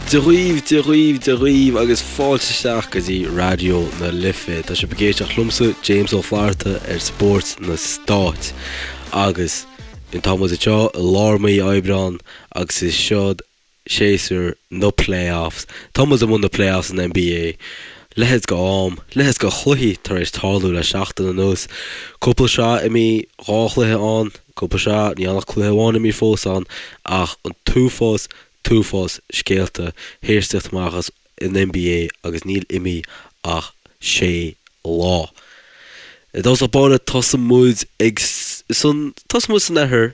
Dia dhaoibh, Dia dhaoibh, Dia dhaoibh agus fáilte isteach go dtí Raidió na Life. Tá sibh ag éisteacht liomsa, James Ó Flatharta ar Spórt na Stát. Agus tá muid anseo i lár mí Aibreán agus is seod séasúr na playoffs. Tá muid i mbun na playoffs san NBA. Leithéid de am, leithéid de chluichí tar éis tarlú le seachtain anuas. Cúpla sraith imithe, dhá chluiche ann, cúpla sraith, níl ach cluiche amháin imithe fós ann, ach an t-uafás, t-uafás scéalta théis tíocht amach as an NBA agus níl imithe ach sé lá. I dtosach báire tosóidh muid ag san tosóidh muid san oirthear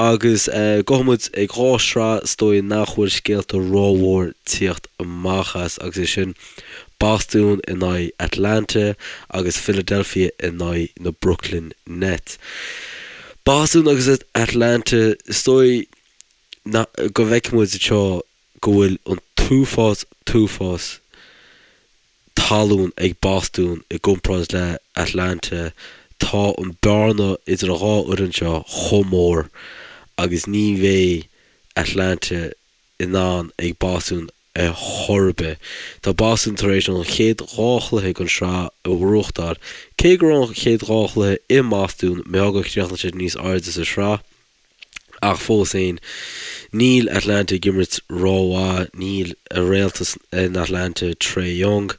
agus gabhfaidh muid ag dhá shraith is dóigh nach bhfuil scéalta rómhór tíocht amach as agus é sin Bostún in aghaidh Atlanta agus Philadelphia in aghaidh na Brooklyn Nets. Bostún agus Atlanta is dóigh go bhfeicfidh muid anseo go bhfuil an t-uafás t-uafás talún ag Bostún i gcomparáid le Atlanta. Tá an bearna idir an dhá fhoireann seo chomh mór agus ní bheidh Atlanta in ann ag Bostún ar chor ar bith. Tá Bostún tar éis an chéad dhá chluiche den sraith a bhuachtáil. Cé go raibh an chéad dhá chluiche i mBostún, mé gur chríochnaigh siad níos airde sa sraith. Ach fós féin, níl Atlanta ag imirt rómhaith, níl a réalta in Atlanta, Trae Young,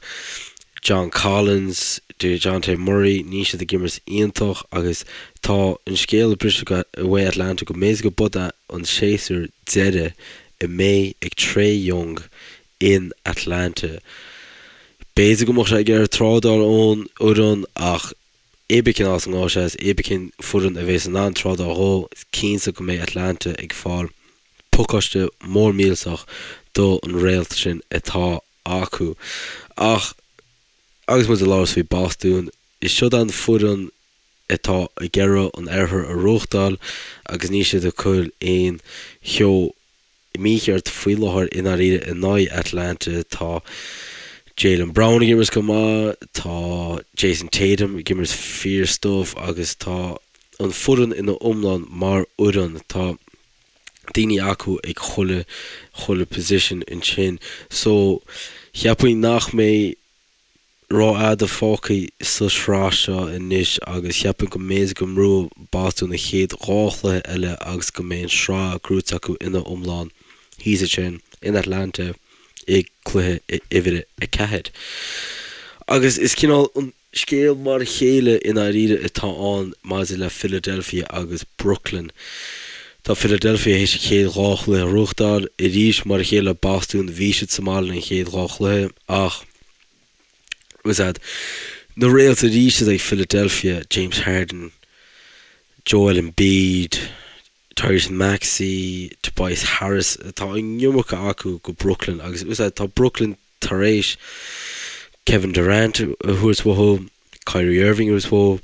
John Collins, Dejounte Murray, níl siad ag imirt iontach agus tá an scéal ag briseadh uaidh Atlanta go mb'fhéidir go b'shiod é an séasúr deiridh a mbeidh ag Trae Young in Atlanta. B'fhéidir go mbeadh sé ag iarraidh trádáil ón fhoireann ach Cibé cén áit a ngabhfaidh sé is cibé cén foireann a bhéas in ann trádáil dhó, is cinnte go mbeidh Atlanta ag fáil pacáiste mór millteach do an réalt sin atá acu. Ach agus muid ag labhairt faoi Bostún, is siod an foireann atá ag iarraidh an oirthear a bhuachtáil agus níl siad ag cur aon cheo mícheart faoi láthair i ndáiríre in aghaidh Atlanta. Tá Jaylen Brown ag imirt go maith, tá Jayson Tatum ag imirt fíor stuif agus tá an foireann ina iomlán mar fhoireann. Tá daoine acu ag chuile chuile position ansin so cheapfainn nach mbeidh rófhada fágtha sa sraith seo anois agus cheapfainn go mb'fhéidir go mbuafaidh Bostún na chéad dhá chluiche eile agus go mbeidh an sraith gnóite acu ina iomlán thíos ansin in Atlanta i gcluiche uimhir a 4. Agus is cineál an scéal mar a chéile i ndáiríre atá ann maidir le Philadelphia agus Brooklyn. Tá Philadelphia théis a chéad dhá chluiche a ghnóthachtáil arís mar a chéile le Bostún bhí siad sa mbaile an chéad dhá chluiche ach was that na réalta arís ag Philadelphia, James Harden, Joel Embiid, Tyrese Maxey, Tobias Harris, tá an iomarca acu go Brooklyn agus was that tá Brooklyn tar éis Kevin Durant a thabhairt uathu, Kyrie Irving a thabhairt uathu.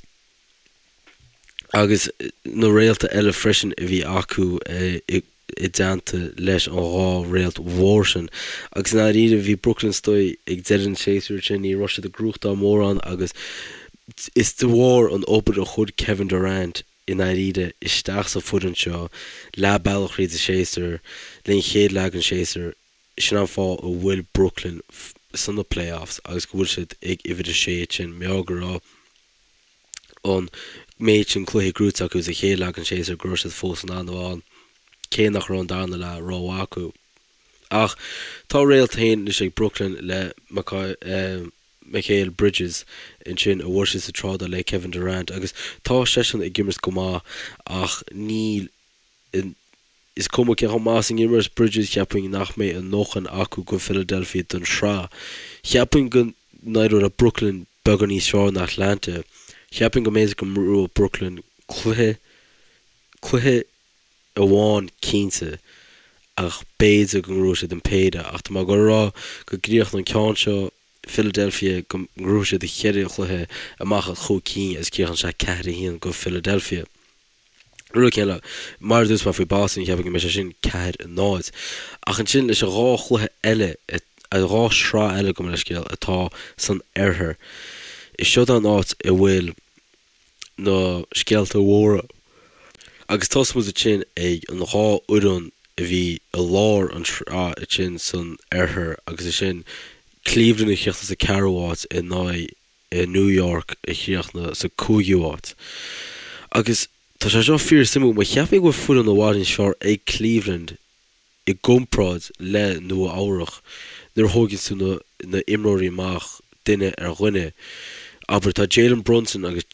agus na réalta eile freisin a bhí acu i dteannta leis an dhá réalt mhór sin. Agus i ndáiríre, bhí Brooklyn istigh ag deireadh an tséasúir sin, ní raibh siad ag gnóthachtáil mórán agus is de bharr an obair a chuir Kevin Durant i ndáiríre isteach sa foireann seo leath bealach thríd an séasúr, linn chéad leath den séasúr, sin an fáth a bhfuil Brooklyn sna playoffs agus go bhfuil siad ag uimhir a sé ansin, mar gheall go raibh. an méid sin cluichí gnóite acu sa chéad leath den séasúr go raibh siad fós in ann a bheith ann, cé nach raibh an darna leath rómhaith acu. Ach tá réalt féin anois ag Brooklyn le Mikal Bridges ansin a bhfuair siad sa trádáil le Kevin Durant agus tá seisean ag imirt go maith ach níl Is cuma cé chomh maith is a imreos Bridges, cheapfainn nach mbeidh a ndóthain acu go Philadelphia don sraith. Cheapfainn go n-éireoidh le Brooklyn beagán níos fearr ná Atlanta. Cheapfainn go mb'fhéidir go mbuafaidh Brooklyn cluiche, cluiche amháin cinnte, ach b'fhéidir go ngnóthóidh siad an péire. Ach tá mé ag dul a rá go gcríochnóidh an ceann seo Philadelphia, go ngnóthóidh siad an cheithre chluiche amach as chúig cinn agus críochnóidh sé 4-1 go Philadelphia. Rud céanna, mar a dúirt mé faoi Boston, cheapfainn go mbeidh sé sin 4, 0. Ach ansin leis an dhá chluiche eile, an dhá shraith eile gabh mo leithscéal, atá san oirthear, is seod an áit a bhfuil na scéalta mhóra. Agus tosóidh muid ansin ag an dhá fhoireann. a bhí i lár an tsraith ansin san oirthear agus ansin Cleveland a chríochnaigh sa ceathrú háit in aghaidh New York a chríochnaigh sa cúigiú háit. Agus tá sé seo fíor suimiúil mar cheapfainn go bhfuil foireann i bhfad níos fearr ag Cleveland i gcomparáid le Nua Eabhrach nuair a thóigeann tú na na imreoirí amach duine ar dhuine. Abair tá Jalen Brunson agus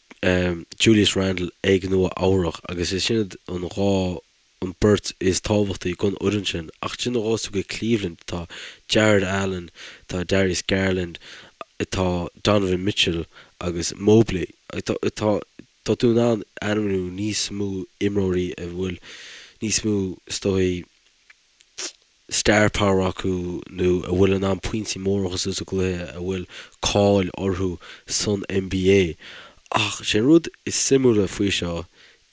Julius Randle ag Nua Eabhrach agus is sin an dhá an beirt is tábhachtaí don fhoireann sin. Ach ansin nuair a ghabhas tú go Cleveland tá Jarrett Allen, tá Darius Garland, tá Donovan Mitchell agus Mobley. Tá tá tá tú in ann ainmniú níos mó imreoirí a bhfuil níos mó is dóigh star power acu nó a bhfuil in ann pointí móra a chur suas sa gcluiche, a bhfuil cáil orthu san NBA. Ach sé an rud is suimiúla faoi seo,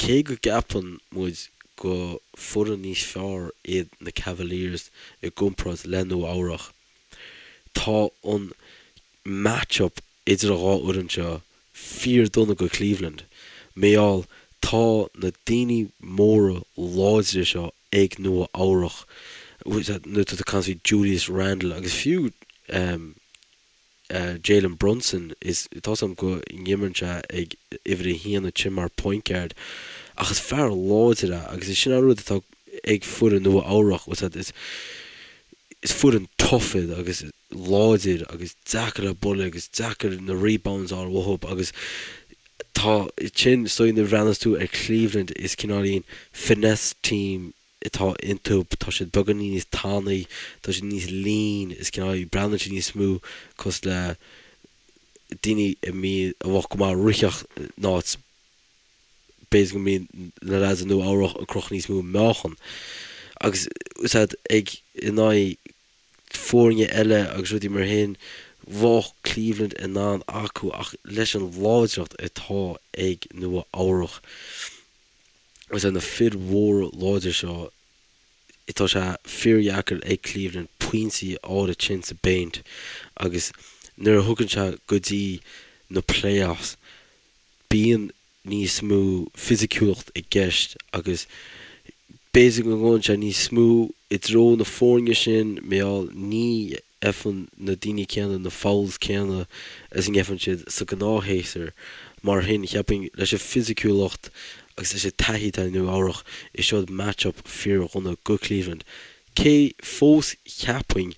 cé go gceapann muid go foireann níos fearr iad na Cavaliers i gcomparáid le Nua Eabhrach, tá an match-up idir an dhá fhoireann seo fíor dona go Cleveland. Mar gheall tá na daoine móra láidre seo ag Nua Eabhrach, nuair atá tú ag caint faoi Julius Randle agus fiú Jalen Brunson, is tá 's agam go n-imríonn sé ag uimhir a haon ansin mar point guard ach is fear láidir é agus is sin an rud atá ag foireann Nua Eabhrach, is is foireann tough iad agus láidir agus deacair le bualadh agus deacair na rebounds a fháil uathu agus tá sin is dóigh nuair a bhreathnas tú ar Cleveland is cineáilín finesse team atá iontu, tá siad beagáinín níos tanaí, tá siad níos lean, is cineál, breathnaíonn siad níos mó cosúil le daoine a mbíonn, a bheadh go maith ag ritheacht in áit b'fhéidir go mbíonn na lads i Nua Eabhrach ag crochadh níos mó meáchan agus is ea ag in aghaidh foirne eile agus rudaí mar shin, bheadh Cleveland in ann acu ach leis an láidreacht atá ag Nua Eabhrach agus na fir mhóra láidre seo, tá sé fíordheacair ag Cleveland pointí a fháil ansin sa bpéint agus nuair a thugann sé go dtí na playoffs, bíonn níos mó fisiciúlacht i gceist agus b'fhéidir go ngabhann sé níos mó i dtreo na foirne sin mar gheall ní fhaigheann na daoine céanna na fouls céanna is a ngeibheann siad sa gnáthshéasúr. Mar shin, cheapfainn leis an fisiciúlacht agus leis an taithí atá ag Nua Eabhrach, is seod match-up fíordhona go Cleveland. Cé fós cheapfainn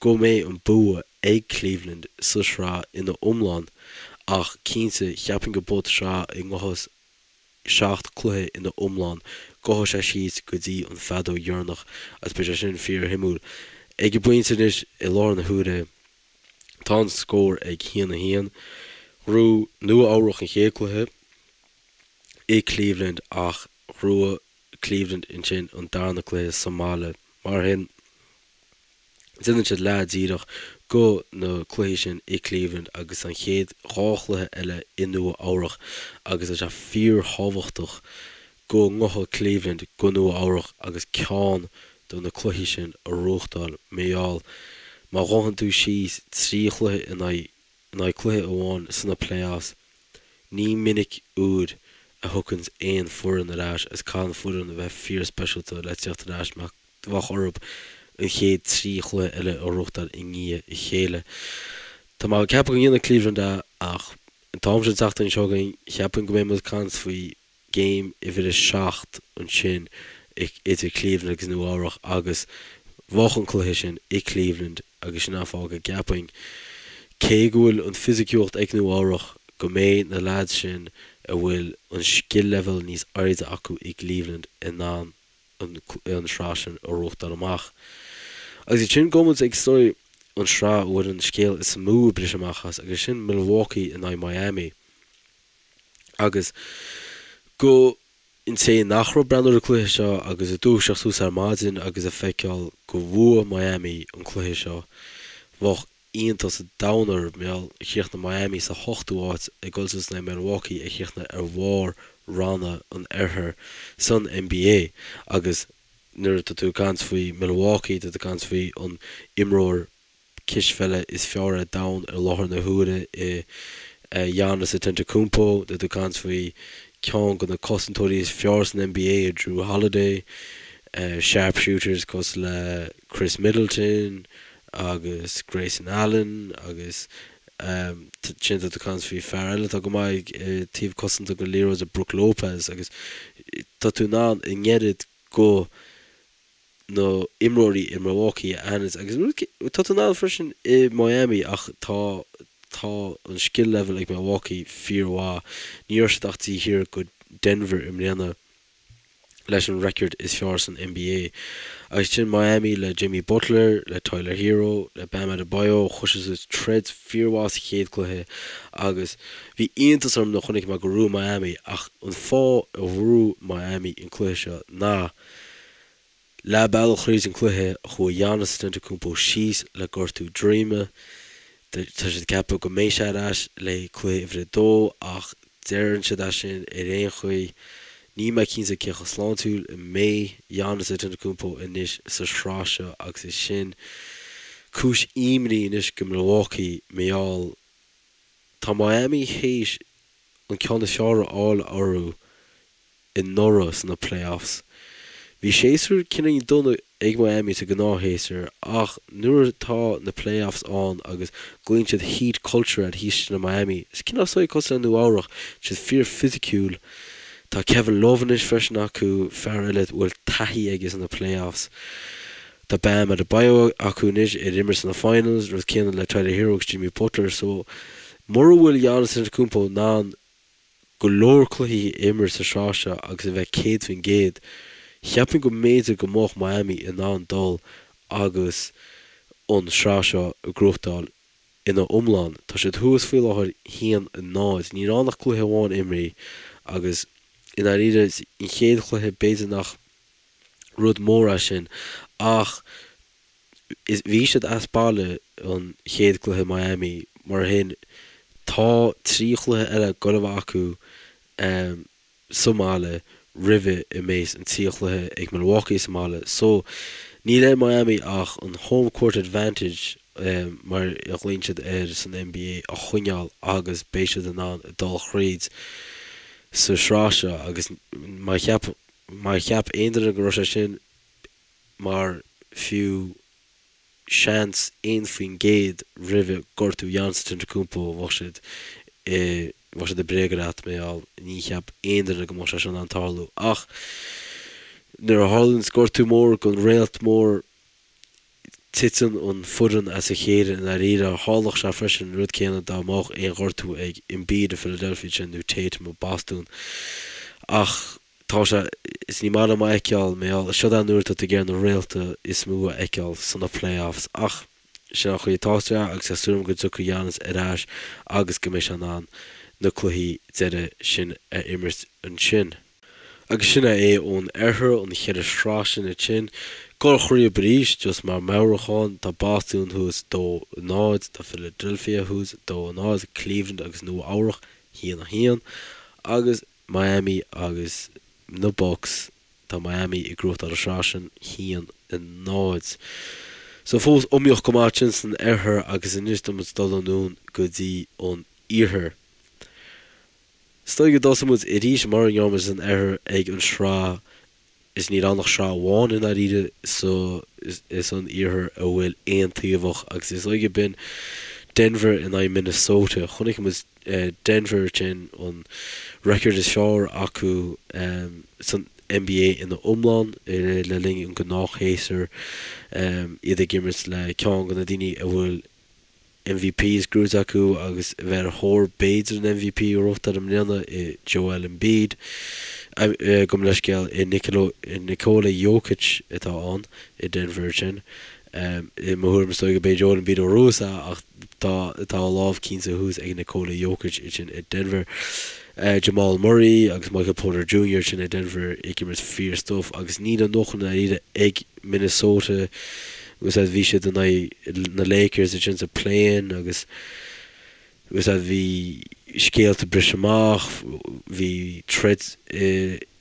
go mbeidh an bua ag Cleveland sa sraith ina iomlán ach cinnte cheapfainn go beidh sraith a ngabhfas 7 cluiche ina iomlán, gabhfaidh sé síos go dtí an feadóg dheireanach agus beidh sé sin fíor-shuimiúil. Ag an bpointe anois i láthair na huaire tá an scór ag 1, 1. Ghnóthaigh Nua Eabhrach an chéad cluiche i Cleveland ach ghnóthaigh Cleveland ansin an darna cluiche sa mbaile. Mar shin. Déanann siad leath díreach go na cluichí sin i Cleveland agus an chéad dhá chluiche eile i Nua Eabhrach agus tá sé fíorthábhachtach go ngabhfadh Cleveland go Nua Eabhrach agus ceann de na cluichí sin a ghnóthachtáil mar gheall má ghabhann tú síos 3 chluiche in aghaidh in aghaidh cluiche amháin sna playoffs. Ní minic uair a thiocfainn aon foireann ar ais agus caithfidh an foireann a bheith fíor-speisialta le tíocht ar ais mar bheadh orthu an chéad 3 chluiche eile a ghnóthachtáil i ndiaidh a chéile. Tá mé ag ceapadh go ndéanfaidh Cleveland é ach an t-am seo an tseachtain seo chugainn cheapfainn go mbeidh muid ag caint faoi Game uimhir a 7 ansin idir Cleveland agus Nua Eabhrach agus bheadh an cluiche sin i Cleveland agus sin an fáth go gceapfainn, cé go bhfuil an fisiciúlacht ag Nua Eabhrach, go mbeidh na leaids sin a bhfuil an skill level níos airde acu i gCleveland in ann an sraith sin a ghnóthachtáil amach. Agus ansin gabhfaidh muid ag is dóigh an sraith a bhfuil an scéal is mó ag briseadh amach as agus sin Milwaukee in aghaidh Miami. Agus go an té nach raibh ag breathnú ar an cluiche seo agus ag dúiseacht suas ar maidin agus ag feiceáil go bhua Miami an cluiche seo, bheadh iontas an domhain orthu mar gheall chríochnaigh Miami sa hochtú háit ag dul suas in aghaidh Milwaukee a chríochnaigh ar bharr ranna an oirthir san NBA agus nuair atá tú ag caint faoi Milwaukee tá tú ag caint faoi an imreoir cispheile is fearr ar domhan i láthair na huaire i Giannis Antetokounmpo. Tá tú ag caint faoi ceann de na cosantóirí is fearr san NBA i Jrue Holiday. Sharpshooters cosúil le Khris Middleton agus Grayson Allen agus ansin tá tú ag caint faoi fear eile atá go maith ag taobh cosanta den liathróid Brook Lopez agus tá tú in ann an oiread go na imreoirí i Milwaukee a aithint agus tá tú in ann freisin i Miami ach tá tá an skill level ag Milwaukee fíormhaith. Ní raibh siad ach taobh thiar go Denver i mbliana. leis an record is fearr san NBA. Agus sin Miami le Jimmy Butler, le Tyler Herro, le Bam Adebayo, chuir siad suas troid fíormhaith sa chéad cluiche agus bhí iontas orm nuair a chonaic mé gur bhuaigh Miami ach an fáth a bhuaigh Miami an cluiche seo ná Leath bealach thríd an cluiche, chuaigh Giannis Antetokounmpo síos le gortú droime. Tá siad ag ceapadh go mbeidh sé ar ais le cluiche uimhir a dó ach deireann siad é sin ar aon chaoi. Níl mé cinnte cé chomh sláintiúil a mbeidh Giannis Antetokounmpo anois sa sraith seo agus is sin cúis imní anois go Milwaukee mar gheall tá Miami théis an ceann is fearr a fháil orthu anuraidh sna playoffs. Bhí séasúr cineál dona ag Miami sa gnáthshéasúr ach nuair atá na playoffs ann agus glaonn siad heat culture air thíos ansin i Miami, is cineál saghas cosúil le Nua Eabhrach, tá siad fíor fisiciúil. Tá Kevin Love anois freisin acu, fear eile a bhfuil taithí aige sna playoffs. Tá Bam Adebayo acu anois ar imir sna finals, rud céanna le Tyler Herro agus Jimmy Butler so mura bhfuil Giannis Antetokounmpo in ann go leor cluichí a imirt sa sraith seo agus a bheith 100%, cheapfainn go mb'fhéidir go mbeadh Miami in ann dul agus an sraith seo a ghnóthachtáil ina iomlán. Tá siad thuas faoi láthair 1-0. Níl ann ach cluiche amháin imrithe agus i ndáiríre an chéad chluiche b'fhéidir nach rud mór é sin ach is bhí siad as baile an chéad cluiche Miami mar sin tá 3 chluiche eile ag gabháil a bheith acu sa mbaile roimhe a mbeidh an 3 chluiche ag Milwaukee sa mbaile so níl ar Miami ach an home court advantage mar a ghlaonn siad air san NBA a choinneáil agus beidh siad in ann dul thríd sa sraith seo agus má cheap má cheap aon duine go raibh sé sin mar fiú seans 1% roimhe gortú Giannis Antetokounmpo bheadh siad i bheadh siad ag bréagadh leat mar gheall ní cheap aon duine go mbeadh sé seo in ann tarlú ach nuair a tharlaíonns gortú mór don réalt mór titeann an foireann as a chéile i ndáiríre. Tharlódh sé freisin an rud céanna dá mbeadh aon ghortú ag Embiid i Philadelphia ansin nó Tatum i Bostún ach Tá sé, is ní maith liom a fheiceáil, mar gheall, seo é an uair atá tú ag iarraidh na réalta is mó a fheiceáil sna playoffs ach sin an chaoi atá sé agus tá súil agam go dtiocfaidh Giannis ar ais agus go mbeidh sé in ann na cluichí deiridh sin a imirt ansin. Agus sin é ón oirthear, an cheithre shraith sin ansin. Dul thríob arís, just mar meabhrúchán, tá Bostún thuas 2, 0, tá Philadelphia thuas 2, 0, Cleveland agus Nua Eabhrach 1, 1 agus Miami agus na Bucks, tá Miami ag gnóthachtáil an sraith sin, 1, 0. So fós iomaíoch go maith ansin san oirthear agus anois tá muid ag dul anonn go dtí an iarthar. Is dóigh go dtosóidh muid arís mar a ndearna muid san oirthear ag an sraith is níl ann ach sraith amháin i ndáiríre sa san iarthar a bhfuil aontaobhach agus is dóigh gurb in Denver in aghaidh Minnesota. Chonaic muid Denver sin an record is fearr acu san NBA ina iomlán le linn an gnáthshéasúr, iad ag imirt le ceann de na daoine a bhfuil MVPs gnóite acu agus a bheith ar thóir b'fhéidir an MVP a ghnóthachtáil i mbliana i Joel Embiid. Gabh mo leithscéal i Nikola Jokic atá ann i Denver ansin. I mo thuairim is dóigh go b'é Joel Embiid ó thuas é ach tá tá a lámh cinnte thuas ag Nikola Jokic ansin i Denver. Jamal Murray agus Michael Porter Jr. ansin i Denver ag imirt fíor stuif agus níl a ndóthain i ndáiríre ag Minnesota agus bhí siad in aghaidh na Lakers ansin sa play-in agus agus bhí scéalta ag briseadh amach, bhí troid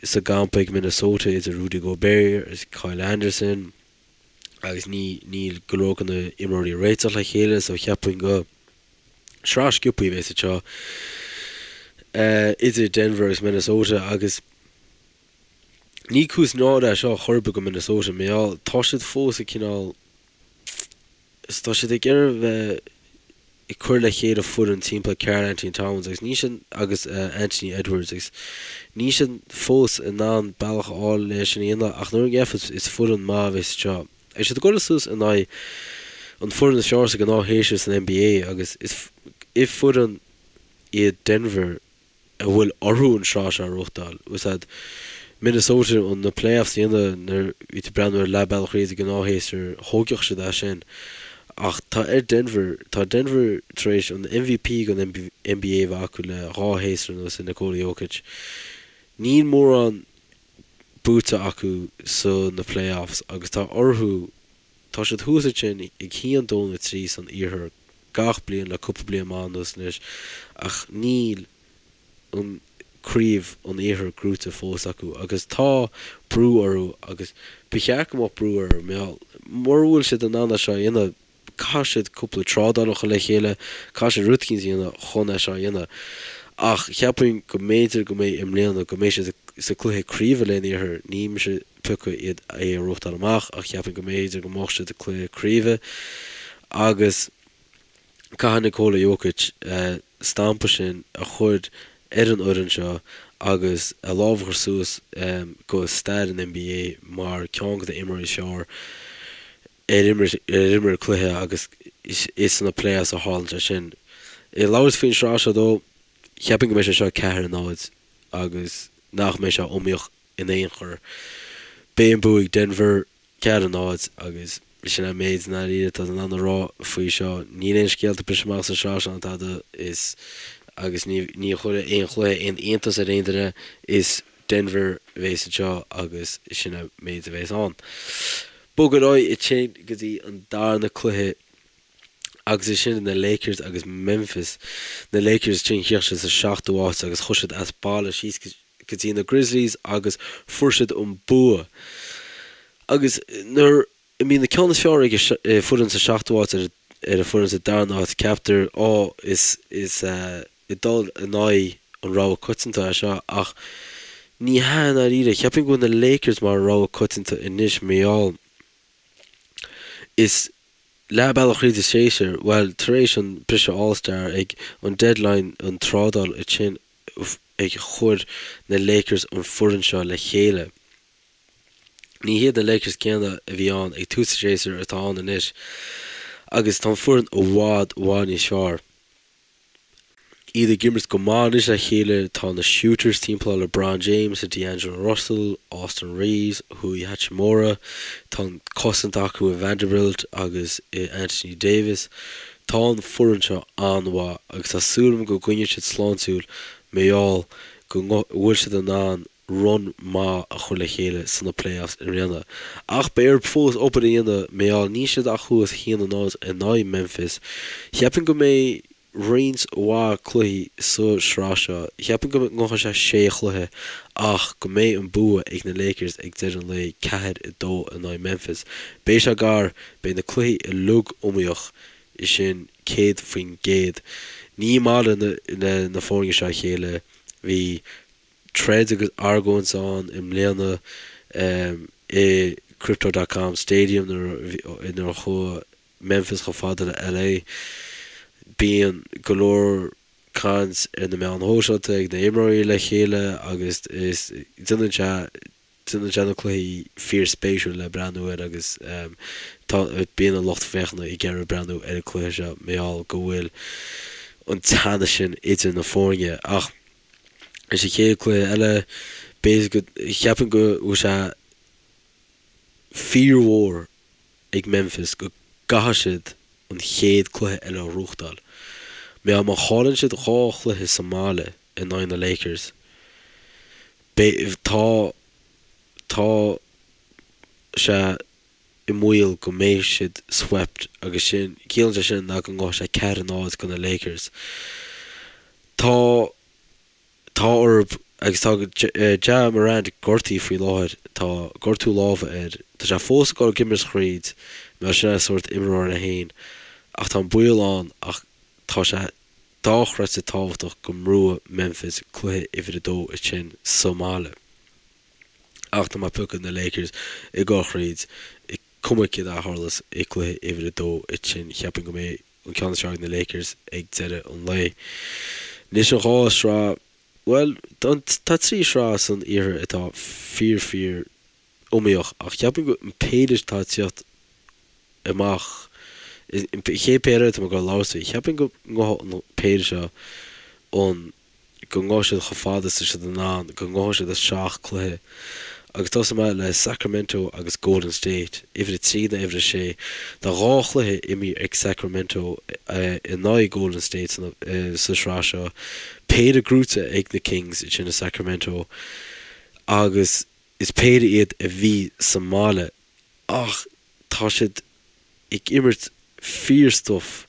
sa gcampa ag Minnesota idir Rudy Gobert agus Kyle Anderson agus ní níl go leor de na imreoirí ag réiteach le chéile so cheapfainn go sraith sciobthaí a bheas anseo idir Denver agus Minnesota agus. Ní cúis náire é seo chor ar bith go Minnesota, mar gheall tá siad fós ag cineál, is tá siad ag iarraidh bheith ag cur le chéile foireann timpeall Karl Anthony Towns agus níl siad agus Anthony Edwards agus níl siad fós in ann bealach a fháil le sin a dhéanamh ach nuair a gheofas is foireann maith a bheas anseo. Beidh siad ag dul suas in aghaidh an foireann is fearr sa gnáthshéasúr san NBA agus is foireann iad Denver a bhfuil orthu an sraith seo a ghnóthachtáil. Úsáid Minnesota an na playoffs a dhéanamh nuair bhí tú ag breathnú ar leath bealach thríd an gnáthshéasúr, thógfadh siad é sin. Ach tá ar Denver, tá Denver tar éis an MVP den NBA a bheith acu le dhá shéasúr anuas i Nikola Jokic. Níl mórán buaite acu sa na playoffs agus tá orthu, tá siad thuas ansin ag 1, 2 nó 3 san iarthar gach bliain le cúpla bliain maith anuas anois ach níl an craobh an iarthair gnóite fós acu agus tá brú orthu agus ba cheart go mbeadh brú orthu mar mura bhfuil siad in ann é seo a dhéanamh caithfidh siad cúpla trádáil a chur le chéile, caithfidh siad rud eicínt a dhéanamh chun é seo a dhéanamh ach cheapfainn go mb'fhéidir go mbeidh i mbliana go mbeidh siad sa cluiche craoibhe len iarthar, ní mise ag piocadh iad é a ghnóthachtáil amach ach cheapfainn go mb'fhéidir go mbeadh siad i cluiche craoibhe agus caithfidh Nikola Jokic stampa sin a chur ar an fhoireann seo agus a lámh a chur suas go stair an NBA mar ceann de na imreoirí is fearr ar imir ar imir cluiche agus is sna playoffs a tharlaíonn sé sin. Ag labhairt faoin sraith seo dó, cheapfainn go mbeidh sé seo 4-0 agus nach mbeidh sé iomaíoch in aon chor. Beidh an bua ag Denver, 4-0, agus sin an méid i ndáiríre atá in ann a rá faoi seo. Níl aon scéalta briseadh amach sa sraith seo ná tada is agus ní ní chuirfidh aon chluiche aon iontas ar aon duine. Is Denver a bheas anseo agus sin an méid a bheas ann. Bog ar aghaidh ansin go dtí an darna cluiche agus is sin na Lakers agus Memphis. Na Lakers ansin chríochnaigh siad sa seachtú háit agus chuaigh siad as baile síos go dtí na Grizzlies agus fuair siad an bua. Agus nuair a mbíonn na ceann is fearr ag an foireann sa seachtú háit ar an foireann sa darna háit ceaptar á is is ag dul in aghaidh an rogha coitianta é seo ach ní hea i ndáiríre. Cheapfainn go bhfuil na Lakers mar rogha coitianta anois mar gheall is leath bealach thríd an séasúr, bhuel tar éis an briseadh All Star ag an deadline an trádáil ansin ag chuir na Lakers an foireann seo le chéile. Ní hiad na Lakers céanna a bhí ann ag tús an séasúir atá ann anois agus tá an foireann i bhfad i bhfad níos fearr. Iad ag imirt go maith anois le chéile, tá na shooters timpeall LeBron James, D'Angelo Russell, Austin Reaves, Rui Hachimura, tá an cosaint acu i Vanderbilt agus i Anthony Davis. Tá an foireann seo an-mhaith agus tá súil agam go gcoinneoidh siad sláintiúil mar gheall go bhfuil siad in ann run maith a chur le chéile sna playoffs i mbliana. Ach beidh orthu fós obair a dhéanamh mar gheall níl siad ach thuas 1-0 in aghaidh Memphis. Cheapfainn go mbeidh roinnt mhaith cluichí sa sraith seo. Cheapfainn go ngabhfaidh sé sé chluiche ach go mbeidh an bua ag na Lakers ag deireadh an lae, 4-2 in aghaidh Memphis. Beidh sé gar, beidh na cluichí uilig iomaíoch, sin 100%. Ní maith le na foirne seo a chéile. Bhí troid agus argóint ann i mbliana i Crypto dot com Stadium nuair a chuaigh Memphis chomh fada le LA. Bíonn go leor caint ar na meáin shóisialta ag na imreoirí le chéile agus is déanann sé déanann sé na cluichí fíorspéisiúil le breathnú air agus tá bíonn an lucht féachana ag iarraidh breathnú ar an cluiche seo mar gheall go bhfuil an teannas sin idir na foirne ach Is an chéad cluiche eile, b'fhéidir go, cheapfainn go bhfuil sé fíormhór ag Memphis go gcaithfidh siad an chéad cluiche eile a ghnóthachtáil. Mar má chailleann siad dhá chluiche sa mbaile in aghaidh na Lakers, beidh, tá, tá sé i mbaol go mbeidh siad swept agus sin, ciallaíonn sé sin ná go ngabhfaidh sé 4-0 go na Lakers. Tá, tá orthu agus tá Ja Morant gortaithe faoi láthair, tá gortú láimhe air, tá sé fós ag dul ag imirt thríd, mar sin é sórt imreoir é féin ach tá an baol ann ach tá sé dochreidte tábhachtach go mbuafaidh Memphis cluiche uimhir a dó ansin sa mbaile. Ach tá mé ag piocadh na Lakers ag dul thríd, cuma céard a tharlós i gcluiche uimhir a dó ansin, cheapfainn go mbeidh an ceann is fearr ag na Lakers ag deireadh an lae. Anois an dhá shraith, bhuel, tá trí shraith san iarthar atá fíor fíor iomaíoch ach cheapfainn go an péire atá ag tíocht amach, an chéad péire atá mé ag dul a labhairt faoi, cheapfainn go ngabhfaidh an péire seo an go ngabhfaidh siad chomh fada is tá siad in ann, go ngabhfaidh siad isteach cluiche. Agus tosóidh mé le Sacramento agus Golden State, uimhir a trí in aghaidh uimhir a sé. Tá dhá chluiche imeartha ag Sacramento in aghaidh Golden State sa sraith seo, péire gnóite ag na Kings ansin i Sacramento agus is péire iad a bhí sa mbaile ach tá siad ag imirt fíor-stuif.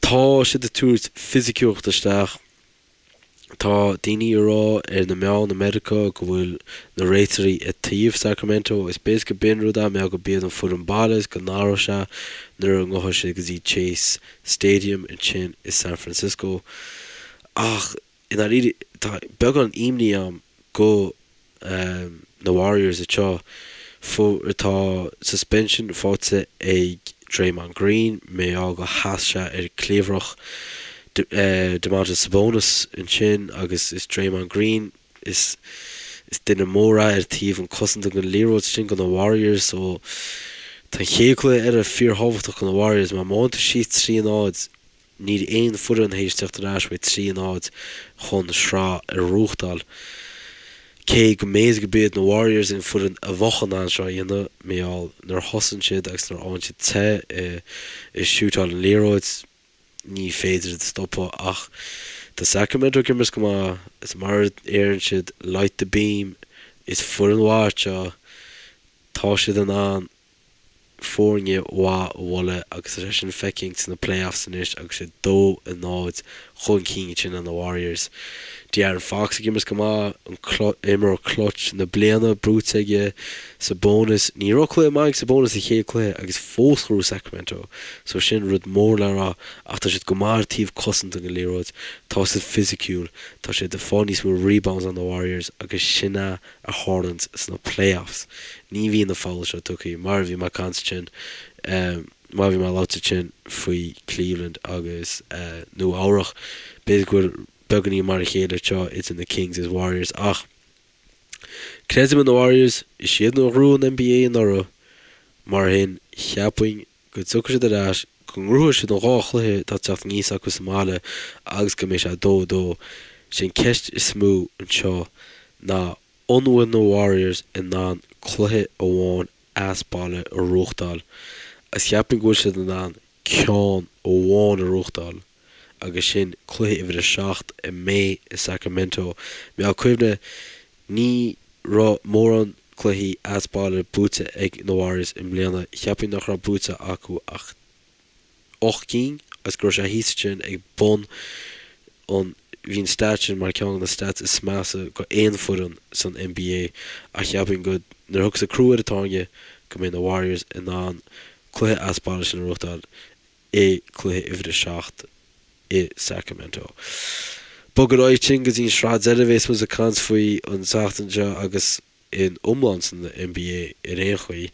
Tá siad ag tabhairt fisiciúlacht isteach. Tá daoine ag rá ar na meáin i Meiriceá go bhfuil na réiteoirí ag taobh Sacramento. Is b'fhéidir go b'in rud é, mar go b'iad an foireann baile is go n-athróidh sé nuair a ngabhfaidh siad go dtí Chase Stadium ansin i San Francisco. Ach i ndáiríre, tá beagán imní a'm go na Warriors anseo. Tá suspension faighte ag Draymond Green mar gheall go sheas sé ar cliabhrach Domantas Sabonis ansin agus is Draymond Green is is duine mór é ar taobh an cosanta den liathróid sin go na Warriors so tá an chéad cluiche eile fíorthábhachtach go na Warriors mar má théann tú síos 3 0 Níl aon foireann théis teacht ar ais uaidh 3 0 chun sraith a ghnóthachtáil. Cé go mb'fhéidir go b'iad na Warriors an foireann a bheadh in ann seo a dhéanamh, mar gheall nuair a thosaíonn siad agus nuair a fhaigheann siad te i siútáil an liathróid, ní féidir iad a stopadh. Ach tá Sacramento ag imirt go maith, is mar a deireann siad, light the beam, is foireann mhaith seo, tá siad in ann foirne mhaith a bhualadh agus tá sé sin feicthe sna playoffs anois agus siad 2 0 chun cinn ansin ar na Warriors. De'Aaron Fox ag imirt go maith, an imreoir clutch na bliana buaite aige, Sabonis, ní raibh cluiche maith ag Sabonis sa chéad cluiche agus fós ghnóthaigh Sacramento so sin rud mór le rá ach tá siad go maith ar taobh cosanta den liathróid, tá siad fisiciúil, tá siad ag fáil níos mó rebounds ná na Warriors agus sin é a tharlaíonns sna playoffs. Ní bhíonn na fouls seo tugtha, mar a bhí mé ag caint ansin, mar a bhí mé ag labhairt ansin faoi Cleveland agus Nua Eabhrach. B'fhéidir go bhfuil beagáinín mar a chéile anseo idir na Kings is Warriors ach creidim in na Warriors, is iad a ghnóthaigh an NBA anuraidh, mar sin cheapfainn go dtiocfaidh siad ar ais, go ngnóthóidh siad an dhá chluiche atá ag teacht aníos acu sa mbaile agus go mbeidh sé 2 2. Sé an ceist is mó anseo ná an bhfuil na Warriors in ann cluiche amháin as baile a ghnóthachtáil agus cheapfainn go bhfuil siad in ann ceann amháin a ghnóthachtáil agus sin cluiche uimhir a 7 a mbeidh i Sacramento. Mar cuimhnigh ní raibh mórán cluichí as baile buaite ag na Warriors i mbliana. Cheapfainn nach raibh buaite acu ach 8 gcinn agus go raibh sé thíos ansin ag bun an bhí an stat sin mar ceann de na stats is measa go aon foireann san NBA ach cheapfainn go nuair a thiocfas an crú ar an tairne go mbeidh na Warriors in ann cluiche as baile sin a ghnóthachtáil i gcluiche uimhir a 7 i Sacramento. Bog ar aghaidh ansin go dtí an sraith deiridh a bhéas muid ag caint faoi an tseachtain seo agus in iomlán san NBA ar aon chaoi.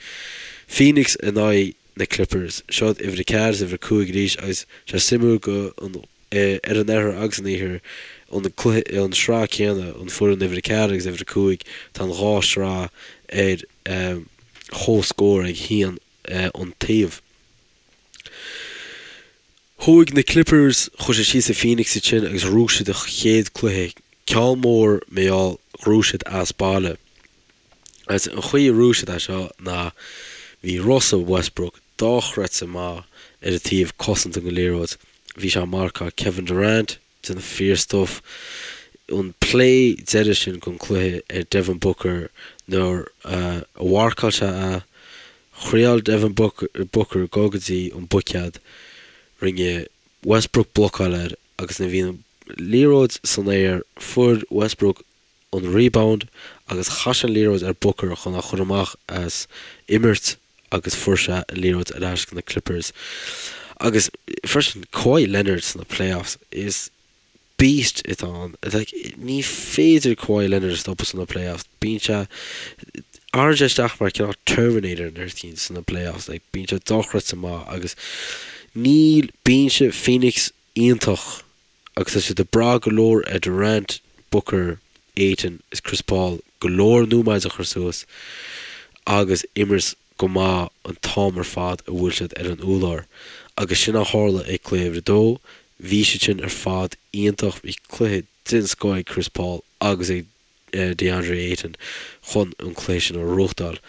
Phoenix in aghaidh na Clippers. Seo uimhir a 4 is uimhir a 5 arís agus sé suimiúil go an ar an oirthear agus an iarthar an cluiche an sraith céanna an foireann uimhir a 4 agus uimhir a 5 tá an dhá sraith ar chomhscór ag haon an taobh. Chuaigh na Clippers, chuaigh siad síos i Phoenix ansin agus ghnóthaigh siad a chéad cluiche, ceann mór mar gheall ghnóthaigh siad as baile. Agus an chaoi a ghnóthaigh siad é seo ná bhí Russell Westbrook dochreidte maith ar an taobh cosanta den liathróid. Bhí sé ag marcáil Kevin Durant, déanamh fíor-stuif. An play deiridh sin den cluiche ar Devin Booker nuair a mharcáil sé é, thriáil Devin Booker dul go dtí an buicéad, rinne Westbrook blocáil air agus nuair a bhí an liathróid san aer fuair Westbrook an rebound agus chaith sé an liathróid ar Booker chun é a chur amach as imirt agus fuair sé an liathróid ar ais go na Clippers. Agus freisin Kawhi Leonard sna playoffs is. Beast atá ann. Like, ní féidir Kawhi Leonard a stopadh sna playoffs. Bíonn sé, athraíonn sé isteach mar cineál Terminator nuair a bhíonn sna playoffs. Like, bíonn sé dochreidte maith agus níl, bíonn sé Phoenix iontach agus tá siad ag brath go leor ar Durant, Booker, Ayton is Chris Paul go leor nóiméid a chur suas agus imirt go maith an t-am ar fad a bhfuil siad ar an úlár. Agus sin a tharla ag cluiche uimhir a dó. Bhí siad sin ar fad iontach. Bhí cluiche den scoth ag Chris Paul agus ag DeAndre Ayton chun an cluiche sin a ghnóthachtáil.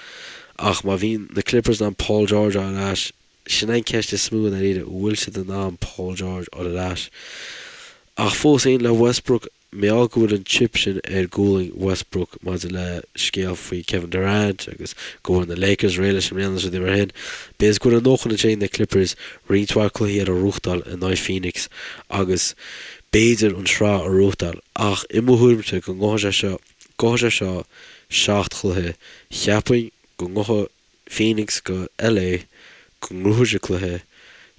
Ach má bhíonn na Clippers in ann Paul George a fháil ar ais, sin é an ceist is mó i ndáiríre, an bhfuil siad in ann Paul George a fháil ar ais? Ach fós féin le Westbrook, Mar gheall go bhfuil an chip sin ar ghualainn Westbrook maidir le scéal faoi Kevin Durant agus go bhfuil na Lakers réidh leis i mbliana is rudaí mar sin, b'fhéidir go bhfuil a ndóthain ansin ag na Clippers roinnt mhaith cluichí eile a ghnóthachtáil in aghaidh Phoenix agus b'fhéidir an tsraith a ghnóthachtáil. Ach i mo thuairimse go ngabhfaidh sé seo, gabhfaidh sé seo 7 chluiche, cheapfainn go ngabhfaidh Phoenix go LA, go ngnóthóidh siad cluiche.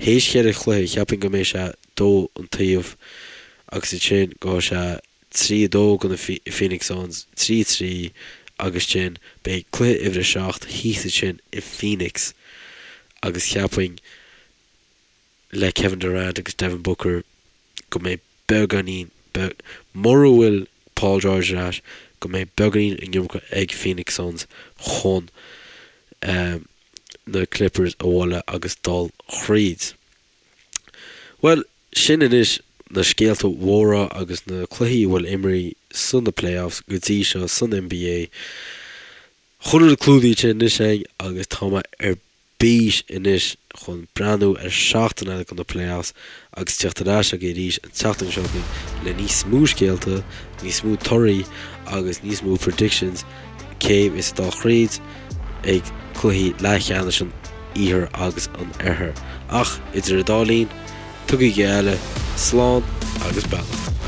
Théis cheithre chluiche, cheapfainn go mbeidh sé 2 an taobh agus ansin gabhfaidh sé 3, 2 go na Phoenix Suns, 3, 3 agus ansin beidh cluiche uimhir a 7 thíos ansin i Phoenix agus cheapfainn le Kevin Durant agus Devin Booker go mbeidh beagáinín, mura bhfuil Paul George ar ais, go mbeidh beagáinín an iomarca ag Phoenix Suns chun na Clippers a bhualadh agus dul thríd. Bhuel, sin anois na scéalta mhóra agus na cluichí a bhfuil imrithe san na playoffs go dtí seo san NBA. Chuile rud clúdaithe anois againn agus tá mé ar bís anois chun breathnú ar seachtain eile de na playoffs agus teacht ar ais agaibh arís an tseachtain seo chugainn le níos mó scéalta, níos mó torthaí agus níos mó predictions cé a bheas ag dul thríd ag cluichí leathcheannais an Iarthair agus an Oirthir. Ach idir an dá linn, tugaigí a chéile slán agus beannacht.